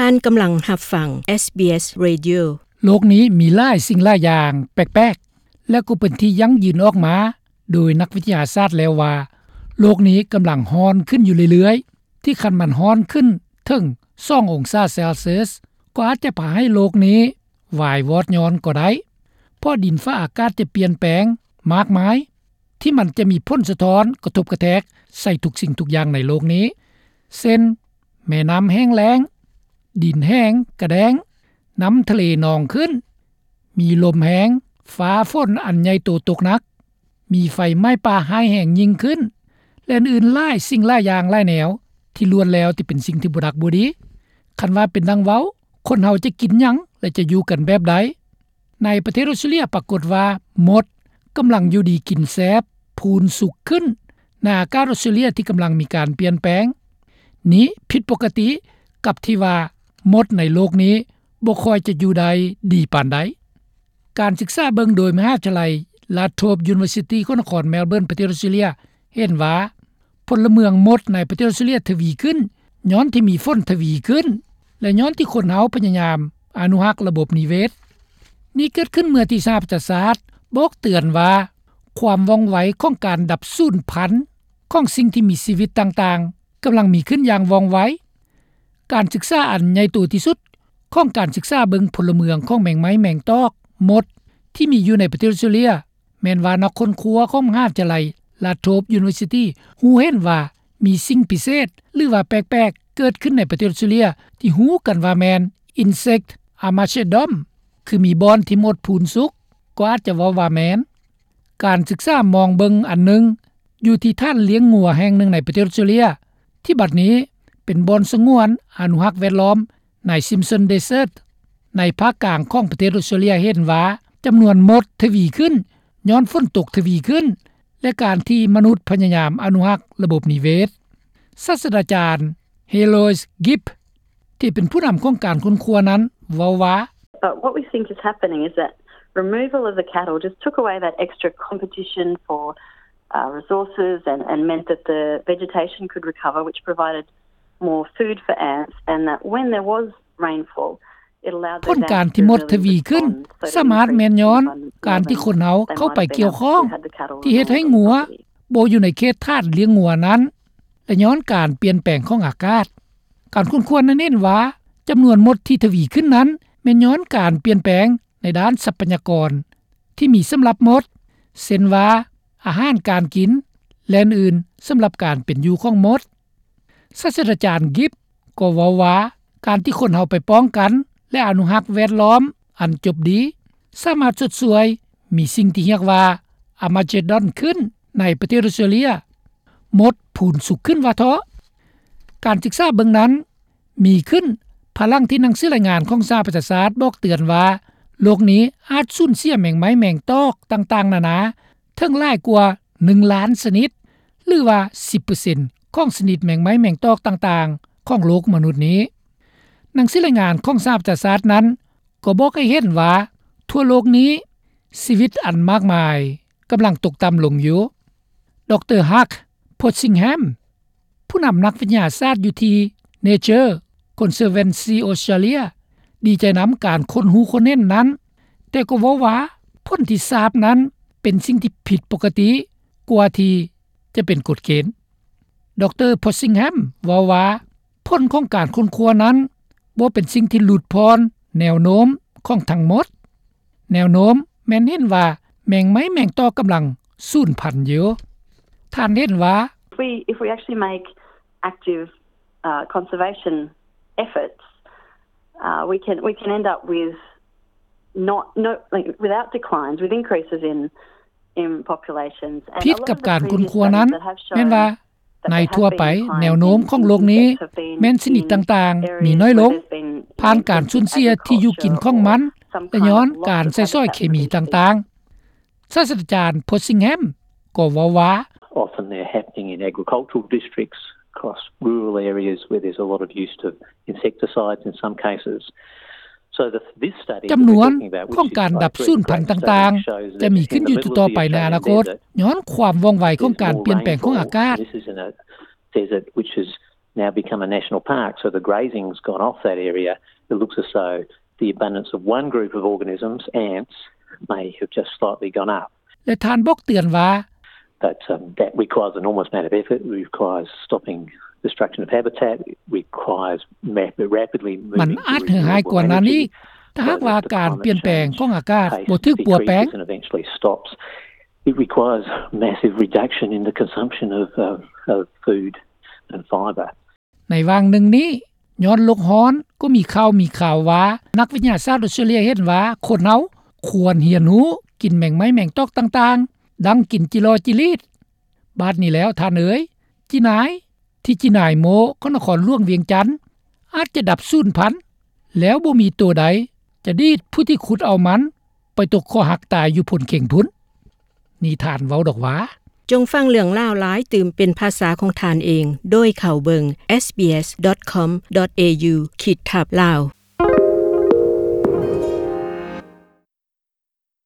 ທ່ານກຳລັງຮັບຟັງ ເອສບີເອສ Radio. ໂລກນີ້ມີຫຼາຍສິ່ງຫຼາຍຢ່າງແປກໆ ແລະ ກໍເປັນທີ່ຢັ້ງຢືນອອກມາໂດຍນັກວິທະຍາສາດແລ້ວວ່າ ໂລກນີ້ກຳລັງຮ້ອນຂຶ້ນຢູ່ເລື້ອຍໆ ທີ່ຄັນມັນຮ້ອນຂຶ້ນເຖິງສອງອົງສາເຊລຊຽສ ກໍອາດຈະພາໃຫ້ໂລກນີ້ວາຍວອດຍ້ອນກໍໄດ້ ເພາະດິນຟ້າອາກາດຈະປ່ຽນແປງມາກມາຍ ທີ່ມັນຈະມີຜົນສະທ້ອນກະທົບກະແທກໃສ່ທຸກສິ່ງທຸກຢ່າງໃນໂລກນີ້ ເຊັ່ນ ແມ່ນ້ຳແຫ້ງແລ້ງ, ດິນແຫ້ງກະແດ້ງ, ນ້ຳທະເລນອງຂຶ້ນ, ມີລົມແຮງ, ຟ້າຝົນອັນໃຫຍ່ໂຕຕົກໜັກ, ມີໄຟໄໝ້ປ່າຮ້າຍແຮງຍິ່ງຂຶ້ນ ແລະ ອື່ນໆຫຼາຍສິ່ງຫຼາຍຢ່າງຫຼາຍແນວ ທີ່ລ້ວນແລ້ວແຕ່ເປັນສິ່ງທີ່ບໍ່ດັກບໍ່ດີ. ຄັນວ່າເປັນດັ່ງເວົ້າ, ຄົນເຮົາຈະກິນຫຍັງ ແລະ ຈະຢູ່ກັນແບບໃດ? ໃນປະເທດອົດສະເຕຣເລັຽປາກົດວ່າ ມົດກຳລັງຢູ່ດີກິນແຊບ, ພູນສຸກຂຶ້ນ ໃນອາກາດອົດສະເຕຣເລັຽທີ່ກຳລັງມີການປ່ຽນແປງ. ນີ້ຜິດປົກກະຕິກັບທີ່ວ່າມົດໃນໂລກນີ້ບໍ່ຄ່ອຍຈະຢູ່ໄດ້ດີປານໃດ. ການສຶກສາເບິ່ງໂດຍມະຫາວິທະຍາໄລ Latrobe University ຂອງນະຄອນ Melbourne ປະເທດອົດສະເຕຣເລັຽ ເຫັນວ່າ ພົນລະເມືອງມົດໃນປະເທດອົດສະເຕຣເລັຽທະວີຂຶ້ນ ຍ້ອນທີ່ມີຝົນທະວີຂຶ້ນ ແລະ ຍ້ອນທີ່ຄົນເຮົາພະຍາຍາມອະນຸຮັກລະບົບນິເວດ. ນີ້ເກີດຂຶ້ນເມື່ອທີ່ສະຫະປະຊາຊາດບອກເຕືອນວ່າ ຄວາມວ່ອງໄວຂອງການດັບສູນພັນຂອງສິ່ງທີ່ມີຊີວິດຕ່າງໆ ກຳລັງມີຂຶ້ນຢ່າງວ່ອງໄວ. ການສຶກສາອັນໃຫຍ່ໂຕທີ່ສຸດຂອງການສຶກສາເບິ່ງພົນລະເມືອງຂອງແມງໄມ້ແມງຕອກມົດທີ່ມີຢູ່ໃນປະເທດອົດສະເຕຣເລັຽ ແມ່ນວ່ານັກຄົ້ນຄວ້າຂອງມະຫາວິທະຍາໄລ Latrobe University ຮູ້ເຫັນວ່າມີສິ່ງພິເສດ ຫຼືວ່າແປກໆເກີດຂຶ້ນໃນປະເທດອົດສະເຕຣເລັຽ ທີ່ຮູ້ກັນວ່າແມ່ນ Insect Armageddon ຄືມີບ່ອນທີ່ມົດພູນສຸກ ກໍອາດຈະເວົ້າວ່າແມ່ນ. ການສຶກສາມອງເບິ່ງອັນໜຶ່ງ ຢູ່ທີ່ຖານລ້ຽງງົວແຫ່ງໜຶ່ງໃນປະເທດອົດສະເຕຣເລັຽ ທີ່ບັດນີ້ເປັນບ່ອນສະຫງວນອະນຸຮັກແວດລ້ອມ ໃນ Simpson Desert ໃນພາກກາງຂອງປະເທດອົດສະເຕຣເລັຽ ເຫັນວ່າຈຳນວນມົດທະວີຂຶ້ນ ຍ້ອນຝົນຕົກທະວີຂຶ້ນ ແລະ ການທີ່ມະນຸດພະຍາຍາມອະນຸຮັກລະບົບນິເວດ. ສາດສະດາຈານ Heloise Gibb ທີ່ເປັນຜູ້ນຳຂອງການຄົ້ນຄວ້ານັ້ນເວົ້າວ່າ But what we think is happening is that removal of the cattle just took away that extra competition for uh, resources and, and meant that the vegetation could recover, which provided more food for ants, and that when there was rainfall, it allowed ຜົນການທີ່ມົດທະວີຂຶ້ນ ສາມາດແມ່ນຍ້ອນການທີ່ຄົນເຮົາເຂົ້າໄປກ່ຽວຂ້ອງ ທີ່ເຮັດໃຫ້ງົວບໍ່ຢູ່ໃນເຂດຖານລ້ຽງງົວນັ້ນ ແລະ ຍ້ອນການປ່ຽນແປງຂອງອາກາດ. ການຄົ້ນຄວ້ານັ້ນເຫັນວ່າ ຈຳນວນມົດທີ່ທະວີຂຶ້ນນັ້ນ ແມ່ນຍ້ອນການປ່ຽນແປງໃນດ້ານຊັບພະຍາກອນ ທີ່ມີສຳລັບມົດ ເຊັ່ນວ່າ ອາຫານການກິນ ແລະ ອື່ນໆ ສຳລັບການເປັນຢູ່ຂອງມົດ. ສາດສະດາຈານ Gibb ກໍເວົ້າວ່າ ການທີ່ຄົນເຮົາໄປປ້ອງກັນ ແລະ ອະນຸຮັກແວດລ້ອມອັນຈົບດີ ສາມາດຊົດຊ່ວຍມີສິ່ງທີ່ຮຽກວ່າ Armageddon ຂຶ້ນໃນປະເທດອົດສະເຕຣເລັຽ ມົດພູນສຸກຂຶ້ນວ່າເທາະ. ການສຶກສາເບິ່ງນັ້ນມີຂຶ້ນພາຍຫຼັງທີ່ໜັງສືລາຍງານຂອງສະຫະປະຊາຊາດບອກເຕືອນວ່າ ໂລກນີ້ອາດສູນເສຍແມງໄມ້ແມງຕອກຕ່າງໆນານາ ເຖິງຫຼາຍກວ່າໜຶ່ງລ້ານຊະນິດ ຫຼືວ່າສິບເປີເຊັນຂອງຊະນິດແມງໄມ້ແມງຕອກຕ່າງໆຂອງໂລກມະນຸດນີ້. ໜັງສືລາຍງານຂອງສະຫະປະຊາຊາດນັ້ນກໍບອກໃຫ້ເຫັນວ່າ ທົ່ວໂລກນີ້ຊີວິດອັນມາກມາຍກຳລັງຕົກຕ່ຳລົງຢູ່. ດຣ. Hugh Possingham ຜູ້ນຳນັກວິທະຍາສາດຢູ່ທີ່ Nature Conservancy Australia ດີໃຈນຳການຄົ້ນຮູ້ຄົ້ນເຫັນນັ້ນ, ແຕ່ກໍເວົ້າວ່າຜົນທີ່ຊາບນັ້ນເປັນສິ່ງທີ່ຜິດປົກກະຕິກວ່າທີ່ຈະເປັນກົດເກນ. ດຣ. Possingham ເວົ້າວ່າ ຜົນຂອງການຄົ້ນຄວ້ານັ້ນບໍ່ເປັນສິ່ງທີ່ຫຼຸດຜ່ອນແນວໂນ້ມຂອງທັງໝົດ. ແນວໂນ້ມແມ່ນເຫັນວ່າແມງໄມ້ແມງຕອກກຳລັງສູນພັນຢູ່. ທ່ານເຫັນວ່າ If we, if we actually make active, uh, conservation efforts, uh, we can, we can end up with not, no, like, without declines, with increases in, in populations. ຜິດກັບການຄົ້ນຄວ້ານັ້ນ ແມ່ນວ່າ ໃນທົ່ວໄປແນວໂນ້ມຂອງໂລກນີ້ແມ່ນຊະນິດຕ່າງໆມີນ້ອຍລົງ ຜ່ານການສູນເສຍທີ່ຢູ່ກິນຂອງມັນ ແລະ ຍ້ອນການໃຊ້ສອຍເຄມີຕ່າງໆ. ສາດສະດາຈານ Possingham ກໍເວົ້າວ່າ Often they're happening in agricultural districts across rural areas where there's a lot of use of insecticides in some cases. ຈຳນວນຂອງການດັບສູນພັນຕ່າງໆ ຈະມີຂຶ້ນຢູ່ຕໍ່ໆໄປໃນອະນາຄົດ ຍ້ອນຄວາມວ່ອງໄວຂອງການປ່ຽນແປງຂອງອາກາດ. now become a national park, so the grazing's gone off that area. It looks as though the abundance of one group of organisms, ants, may have just slightly gone up. ແລະທ່ານບອກເຕືອນວ່າ But um, that requires an enormous amount of effort. It requires stopping destruction of habitat. It requires rapidly moving ມັນອາດເຫື່ອຮ້າຍກວ່ານັ້ນອີກ ຖ້າຫາກວ່າການປ່ຽນແປງຂອງອາກາດບໍ່ຖືກປົວແປງ. It requires massive reduction in the consumption of, uh, of food and fibre. ໃນຫວ່າງໜຶ່ງນີ້ ຍ້ອນໂລກຮ້ອນ ກໍມີຂ່າວມີຄາວວ່າ ນັກວິທະຍາສາດອົດສະຕຣາເລຍເຫັນວ່າ ຄົນເຮົາຄວນຮຽນຮູ້ກິນແມງໄມ້ແມງຕອກຕ່າງໆ ດັ່ງກິນຈີຫຼໍຈີລີດ. ບາດນີ້ແລ້ວທ່ານເອີຍ ຈີນາຍ ທີ່ຈີນາຍໂມຂອງນະຄອນຫຼວງວຽງຈັນ ອາດຈະດັບສູນພັນ ແລ້ວບໍ່ມີໂຕໃດຈະດີດຜູ້ທີ່ຂຸດເອົາມັນ ໄປຕົກຄໍຫັກຕາຍຢູ່ໂພນເຄັງພຸ້ນ. ນີ້ທ່ານເວົ້າດອກວ່າ ຈົ່ງຟັງເລື່ອງລາວຫຼາຍຕື່ມເປັນພາສາຂອງທ່ານເອງ ໂດຍເຂົ້າເບິ່ງ sbs.com.au ຂີດທັບ Lao.